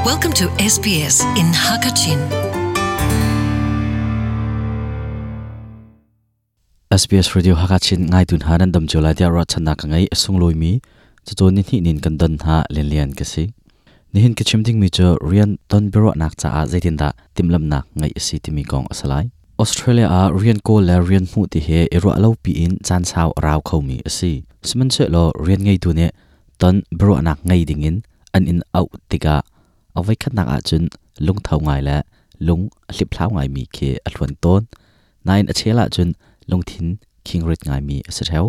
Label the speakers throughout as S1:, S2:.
S1: Welcome to SBS in Hakachin.
S2: SBS Radio Hakachin ngai tun ha nan dam chu lai tia ro channa ka ngai sungloimi mi chu ni ni nin kan don ha len lian ka si nihin ka chim ding mi chu rian ton biro nak cha a zaitin da timlam nak ngai si timi kong asalai Australia a rian ko le rian mu ti he ero alo pi in chan chau raw kho mi asi siman che lo rian ngai tu ne ton biro nak ngai ding in an in out tika awai khat nak a chun lung thau ngai la lung hlip thlau ngai mi khe a thluan ton nain a chela chun lungthin khingrit ngai mi ase theu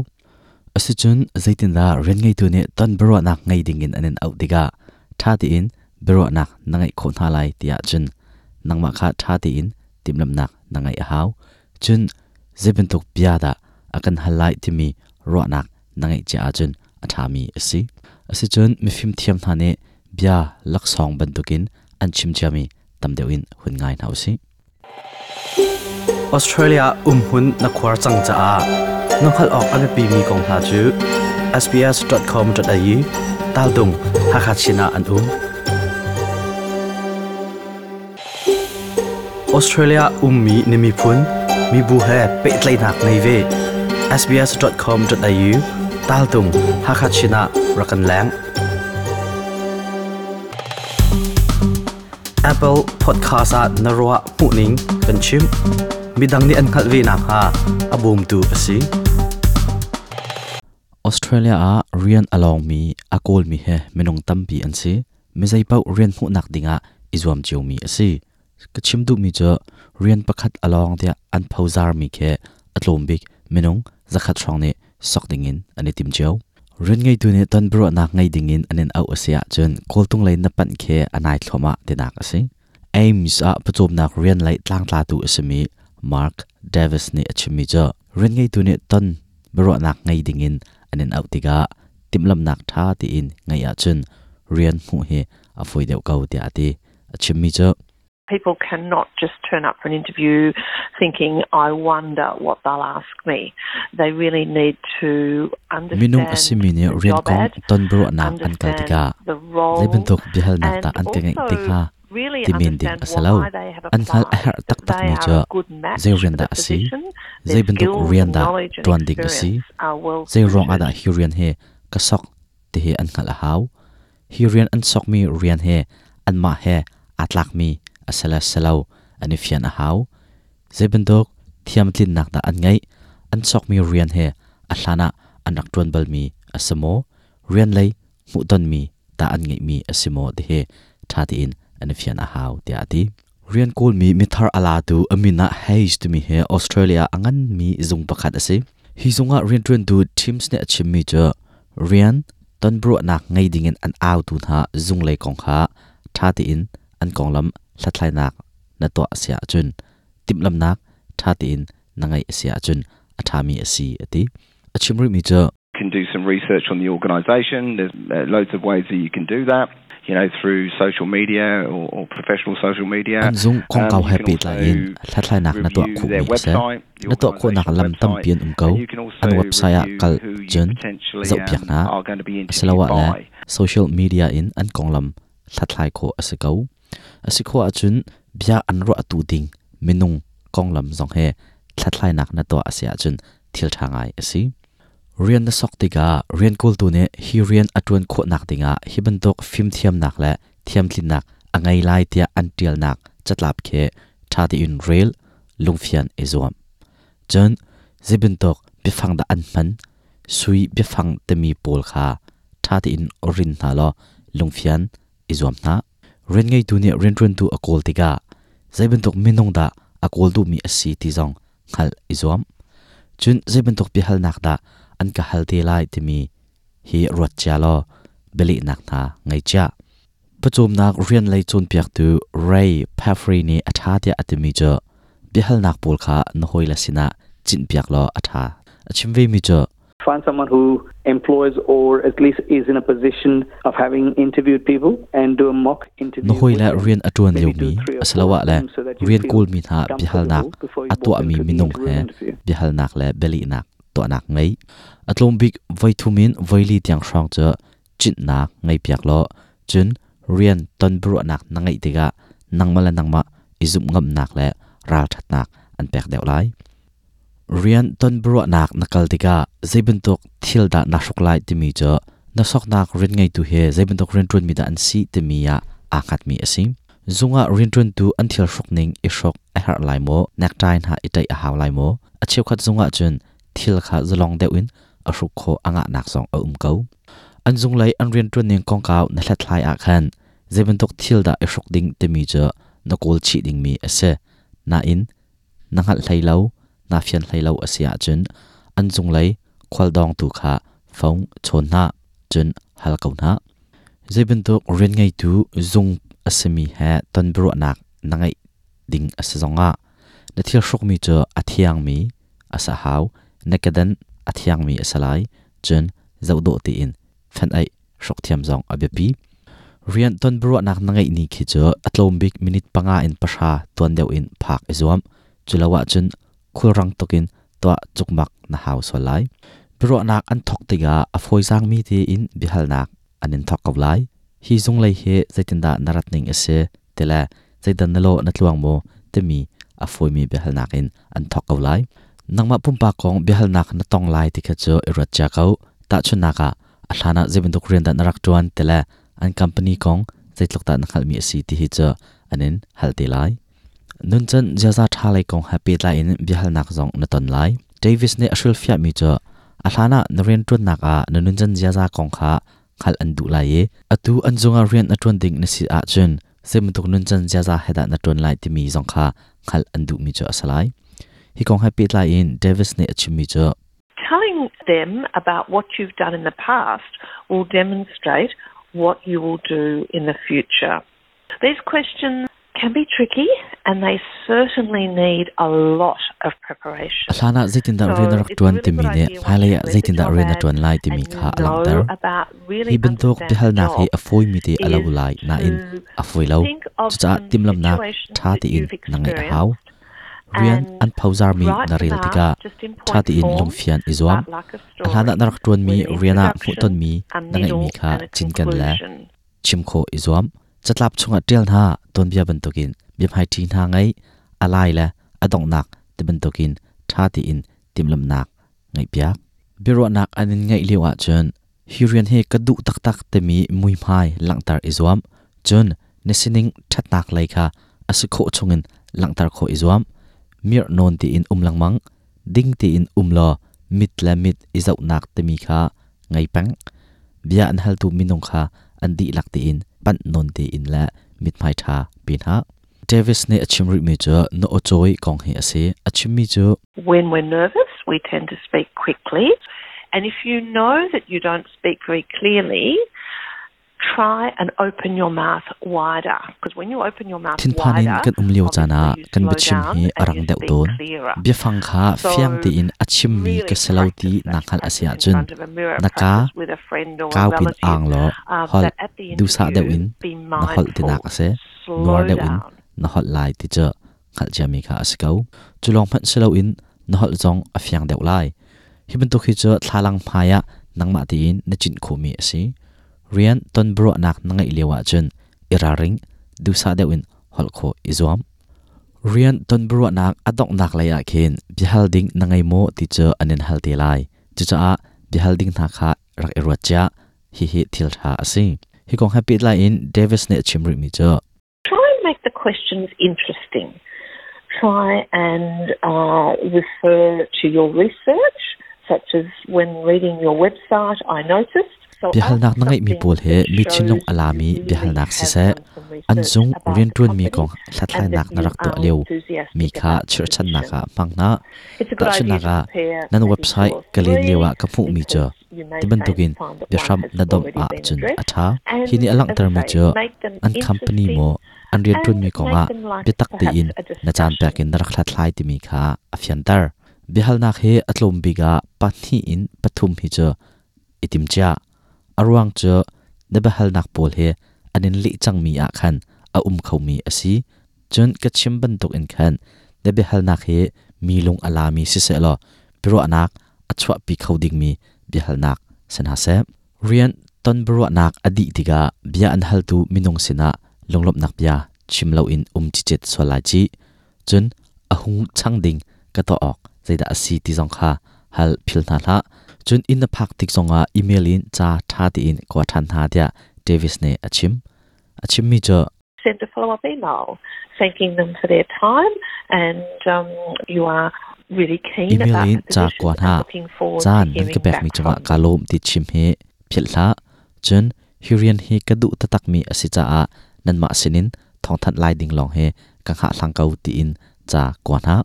S2: ase chun zaitin da rian ngai tu ne ton biro nak ngai ding in an in out tika tha ti in biro nak nangai kho na lai tia chun nangma kha tha ti in timlam nak nangai a hau chun zebin tuk bia da akan halai timi ro nak nangai cha a chun a tha mi asi asi chun mifim thiam tha ne bia laksong bantukin an chim chami tamdeuin hun ngai nau si
S3: Australia umhun na khuar chang cha a nokhal ok ame pi mi kong hna chu sbs.com.au tal dung hakachina an um Australia ummi nimi phun mi bu he petlai nak nei ve sbs.com.au tal dung hakachina rakan lang Apple Podcast ah na ruah hmuhning kan chim. Midang nih an hngalh ve nakhnga a bawmtu a si.
S2: Australia ah rian a lawngmi a kawlmi he minung tampi an si. Mizei paoh rian hmuhnak dingah i zuam ciomi a si. Ka chim duhmi cu rian pakhat a lawng tiah an phozarmi khi a tlawm bik minung zakhat hrawng nih sok dingin an i tim cio. Rian ngeitu nih ton biaruahnak ngei dingin an in auh a si ahcun kawltung lei na panh khi a nai thluahmah tinak a si. Ames ah pawcawmnak rian lei tlangtlatu a simi Mark Davis nih a chimmi cu rian ngeitu nih ton biaruahnak ngei dingin an in auh tikah timhlamhnak ṭha tiin ngeih ahcun rian hmuh hi a fawi deuh ko tiah a ti. A chimmi cu
S4: People cannot just turn up for an interview thinking, I wonder what they'll ask me. They really need to
S2: Minung a
S4: understand
S2: simi nih
S4: the
S2: rian
S4: job
S2: kong
S4: ad,
S2: ton biaruahnak an kal
S4: understand
S2: tikah
S4: the
S2: zei
S4: role,
S2: bantuk biahalnak
S4: and
S2: dah an ka ngeih
S4: also
S2: ti kha
S4: really
S2: ti men ding
S4: understand
S2: a si lo.
S4: why they have
S2: An hngalh a
S4: applied,
S2: herh
S4: that
S2: taktakmi
S4: they are
S2: cu
S4: a good match
S2: zei rian
S4: for
S2: dah
S4: the
S2: a si,
S4: position,
S2: zei
S4: their
S2: bantuk
S4: skills
S2: rian
S4: and
S2: dah
S4: knowledge and
S2: ṭuan ding a si,
S4: experience are well
S2: zei ruang ah
S4: suited.
S2: dah hi rian hi ka sok ti hi an hngalh a hau. Hi rian an sokmi rian he anmah he aa tlakmi a si le si lo an i fian a hau. Zei bantuk thiamtlinnak dah an ngeih, an sokmi rian he a hlan ah an rak ṭuan balmi a si maw, rian lei hmuhtonmi dah an ngeihmi a si maw ti hi ṭha tein an i fian a hau tiah a ti. Rian kawlmi mithar a latu a min ah Hayes timi hi Australia a nganmi zung pakhat a si. Hi zung ah rianṭuantu Teams nih a chimmi cu rian tonbiaruahnak ngei dingin an autu hna zunglei kong kha ṭha tein an konglam hlathlainak na tuah a si ahcun timhlamhnak ṭha tein na ngeih a si ahcun a ṭhami a si a ti. A chim rihmi cu
S5: can do some research on the organisation. There's loads of ways that you can do that, you know, through social media or, or professional social media.
S2: An zung kongkau
S5: you
S2: he
S5: can
S2: pehtlai in
S5: also
S2: hlathlainak na tuah
S5: review
S2: khawhmi
S5: their
S2: a si.
S5: website, the
S2: Na tuah khawhnak
S5: organisation's
S2: lam
S5: website,
S2: tampi an um ko.
S5: and you can also
S2: An website ah
S5: review
S2: kal
S5: who you
S2: cun
S5: potentially
S2: zohpiak hna.
S5: are going to be interviewed
S2: Asiloah le
S5: by.
S2: social media in an konglam hlathlai khawh a si ko. A si khawh ahcun bia an ruahtu ding minung konglam zong he hlathlainak na tuah a si ahcun thil ṭha ngai a si. Rian na sok tikah rian kawltu nih hi rian a ṭuan khawhnak dingah hi bantuk fimthiamnak le thiamtlinnak a ngei lai tiah an ṭialnak catlap khi ṭha tein rel, lungfian i zuam. Cun zei bantuk biafang dah an hman, sui biafang timi pawl kha ṭha tein rin hna law lungfian i zuam hna. Rian ngeitu nih rianṭuantu a kawl tikah zei bantuk minung dah a kawl duhmi a si ti zong hngalh i zuam. Cun zei bantuk biahalnak dah an ka hal te lai timi hi ruat cia law bialehnak hna ngei cia. Pawcawmnak rian lei cawnpiaktu Ray Pafrey nih a ṭha tiah a timi cu biahalnak pawl kha na hawile sinah cinhpiak law a ṭha. A chim vemi cu
S6: Find someone who employs or at least is in a position of having interviewed people and do a mock interview
S2: na
S6: with
S2: hawile
S6: them.
S2: rian a ṭuan
S6: Maybe
S2: liomi
S6: do three or four
S2: asiloah
S6: of
S2: le
S6: them so that you
S2: rian
S6: feel
S2: kawlmi hna biahalnak
S6: comfortable before
S2: a
S6: you walk
S2: tuahmi
S6: into the
S2: minung
S6: room
S2: he
S6: interview.
S2: biahalnak le bialehnak tuahnak ngei. A tlawm bik voithum in voili tiang hrawng cu cinhnak ngeipiak law cun Rian ton biaruahnak na ngeih tikah nangmah le nangmah i zumh ngamnak le ralṭhatnak an pek deuh lai. Rian ton biaruahnak na kal tikah zei bantuk thil dah naa hruk lai timi cu na soknak rian ngeitu he zei bantuk rianṭuanmi dah an si timi ah aa hngatmi a si. Zung ah rianṭuantu an thil hruk ning i hruk a herh lai maw, necktie hna i ṭaih a hau lai maw? A cheukhat zung ah cun thil kha zalong deuh in a hruk khawh a ngahnak zong a um ko. An zunglei an rianṭuan ning kongkau na hlathlai ah khan zei bantuk thil dah i hruk ding timi cu na kawl chih dingmi a si. Nain na hngalh hlei lo, naa fian hlei lo a si ahcun an cunglei khualdawngtu kha phone chawn hna, cun hal ko hna. Zei bantuk rian ngeitu zung a simi he ton biaruahnak na ngeih ding a si zongah na thil hrukmi cu a thiangmi a si hau, na kedan a thiangmi a si lai, cun zohdawh tein fenh-aih hruk thiam zong a biapi. Rian ton biaruahnak na ngeih ni khi cu a tlawm bik minute 5 in 10 tuan deuh in phak i zuam. Cu lo ahcun khulrang tukin tuah cukmak na hau sual lai. Biaruahnak an thawk tikah a fawizaangmi tein biahalnak an in thawk ko lai. Hi zunglei hi zeitindah na rat ning a si ti le zeidan na lawh na tluang maw timi a fawimi biahalnak in an thawk ko lai. Nangmah pumpak kong biahalnak na tong lai ti kha cu i ruat cia ko. Tahchunhnak ah, a hlan ah zei bantuk rian dah na rak ṭuan ti le an company kong zeitluk dah na hngalhmi a si ti hi cu an in hal te lai. Nuncan ziaza ṭha lei kong he pehtlai in biahalnak zong na ton lai. Davis nih a hrilhfiahmi cu a hlan ah na rianṭuannak ah na nuncan ziaza kong kha hngalh an duh lai i atu an zungah rian a ṭuan ding na si ahcun zei bantuk nuncan ziaza he dah na ṭuan lai timi zong kha hngalh an duhmi cu a si lai. Hi kong he pehtlai in Davis nih a chimmi cu
S4: Telling them about what you've done in the past will demonstrate what you will do in the future. These questions can be tricky and they certainly need a lot of preparation.
S2: A hlan ah zeitindah rian na rak ṭuan timi nih hmailei ah zeitindah rian na ṭuan lai timi kha a langhter. Hi bantuk biahalnak hi a fawimi te a lo lai nain a fawi lo. Cucaah timhlamhnak ṭha tein na ngeih a hau. Rian an phozarmi na rel tikah ṭha tein lungfian i zuam. A hlan ah na rak ṭuanmi rian ah hmuhtonmi na ngeihmi kha cinken le chim khawh i zuam. Catlap chungah ṭial hna tuanbia bantukin biahmaiṭhi hna ngei, a lai le a donghnak ti bantukin ṭha tein timhlamhnak ngeihpiak. Biaruahnak an in ngeih lio ahcun hi rian hi ka duh taktak timi muihmai langhter i zuam. Cun na sining ṭhatnak lei kha a si khawh chungin langhter khawh i zuam. Mirh nawn tein um lengmang, ding tein um law mit le mit i zohnak timi kha ngei peng. Bia an haltu minung kha an dihlak tein panh nawn tein le mithmai ṭha pe hna. Davis nih a chim rihmi cu na aw-cawi kong hi a si. A chimmi cu
S4: When we're nervous, we tend to speak quickly. And if you know that you don't speak very clearly, try and open your mouth wider. Because when you open your mouth
S2: Thinphan in
S4: wider,
S2: kan um lio caan ah
S4: obviously you
S2: kan
S4: slow
S2: biachim
S4: down
S2: hi a
S4: and
S2: rang
S4: you
S2: deuh
S4: speak
S2: tawn.
S4: clearer.
S2: Biafang kha
S4: So
S2: fiang tein a chimmi
S4: really
S2: ka si lo ti
S4: practice that.
S2: naa hngalh a si
S4: Practice in
S2: ahcun
S4: front of a mirror,
S2: na ka
S4: practice with a friend or a
S2: kaupin
S4: relative.
S2: ang law holh
S4: But at the
S2: duhsah deuh
S4: interview,
S2: in
S4: be
S2: na holh tinak
S4: mindful,
S2: a si.
S4: slow
S2: Nuar deuh in
S4: down.
S2: na holh lai ti cu hngalh ciami kha a si ko. Cu lawng hmanh si loin na holh zong a fiang deuh lai. Hi bantuk hi cu thlalang hmai ah nangmah tein na cinh khawhmi a si. Rian ton biaruahnak na ngeih lio ahcun i ralring, duhsah deuh in holh khawh i zuam. Rian ton biaruahnak a donghnak lei ah khin biahal ding na ngei maw ti cu an in hal te lai. Cucaah biahal ding hna kha rak i ruat cia. Hihi thil ṭha a si. Hi kong he pehtlai in Davis nih a chim rihmi cu
S4: Try and make the questions interesting. Try and refer to your research, such as when reading your website, I noticed.
S2: Biahalnak na ngeihmi pawl hi mi thinlung a lami biahalnak siseh, an zung rianṭuanmi kong hlathlainak na rak tuah lio mi kha chirhchannak ah hmang hna. Tahchunhnak ah, nan website ka len lioah ka hmuhmi cu ti bantukin biahram na domh ahcun a ṭha. Hi nih a langhtermi cu an company maw an rianṭuanmi kongah biatak tein na caan pek in na rak hlathlai timi kha a fianter. Biahalnak hi a tlawm bik ah 2 in 3 hi cu i timcia. A ruang cu na biahalnak pawl hi an in leh cangmi ah khan a um khomi a si. Cun ka chim bantuk in khan na biahalnak hi mi lung a lami siseh law biaruahnak a chuahpi kho dingmi biahalnak si hna seh. Rian Ton biaruahnak a dih tikah bia an haltu minung sinah lunglawmhnak bia chim loin um cicet sual lai cih. Cun a hung chang ding ka tuah awk zeidah a si ti zong kha hal phil hna hlah. Cun inn na phak tik zongah email in ca ṭha tein kua ṭhan hna tiah Davis nih a chim. A chimmi cu
S4: send a follow-up email thanking them for their time and you are really keen
S2: Email
S4: about
S2: in
S4: the
S2: ca
S4: position
S2: kua
S4: and
S2: hna.
S4: looking forward to
S2: Caan nan
S4: hearing
S2: ka pekmi
S4: back
S2: cungah
S4: from
S2: kaa
S4: them.
S2: lawm ti chim hi philh hlah. Cun hi rian hi ka duh taktakmi a si caah nanmah sinin thawngthanh lai ding lawng hi ka hngahhlang ko tiin ca kua hna.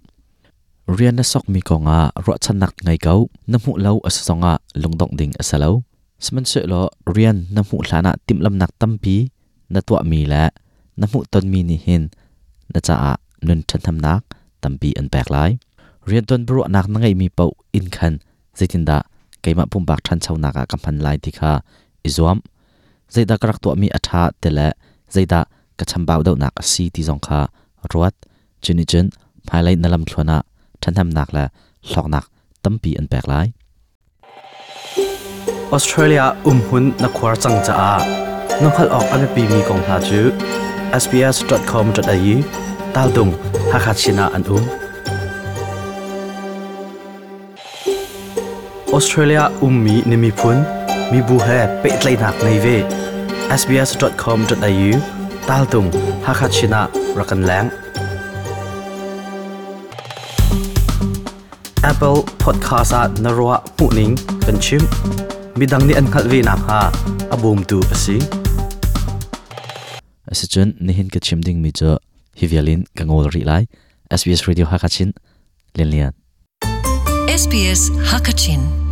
S2: Rian na sokmi kongah ruahchannak ngei ko. Na hmuh lo a si zongah lungdongh ding a si lo. Sihmanhsehlaw rian na hmuh hlanah timhlamnak tampi na tuahmi le na hmuhtonmi nih hin na caah nun ṭhathnemnak tampi an pek lai. Riantuan biaruahnak na ngeihmi paoh in khan zeitindah keimah pumpak ṭhanchonak ah ka hman lai ti kha i zuam. Zeidah ka rak tuahmi a ṭha ti le zeidah ka chambau deuhnak a si ti zong kha ruat. Cu nih cun hmailei na lamthluan ah ṭhahnemnak le hlawknak tampi an pek lai.
S3: Australia umhun na khuar cang caah na hngalh awk a biapimi kong hna cu sbs.com.au taldung Hakha Chin ah an um. Australia ummi na miphun, mibu he pehtlaihnak ngei ve. sbs.com.au taltung Hakha Chin ah rak kan leng. Apple Podcast ah na ruah hmuhning kan chim. Midang nih an hngalh ve nakhnga a bawmtu a si.
S2: Asicun nihin ka chim dingmi cu hi vial in ka ngol rih lai. SBS Radio Hakachin Lian Lian.
S1: SBS Hakachin.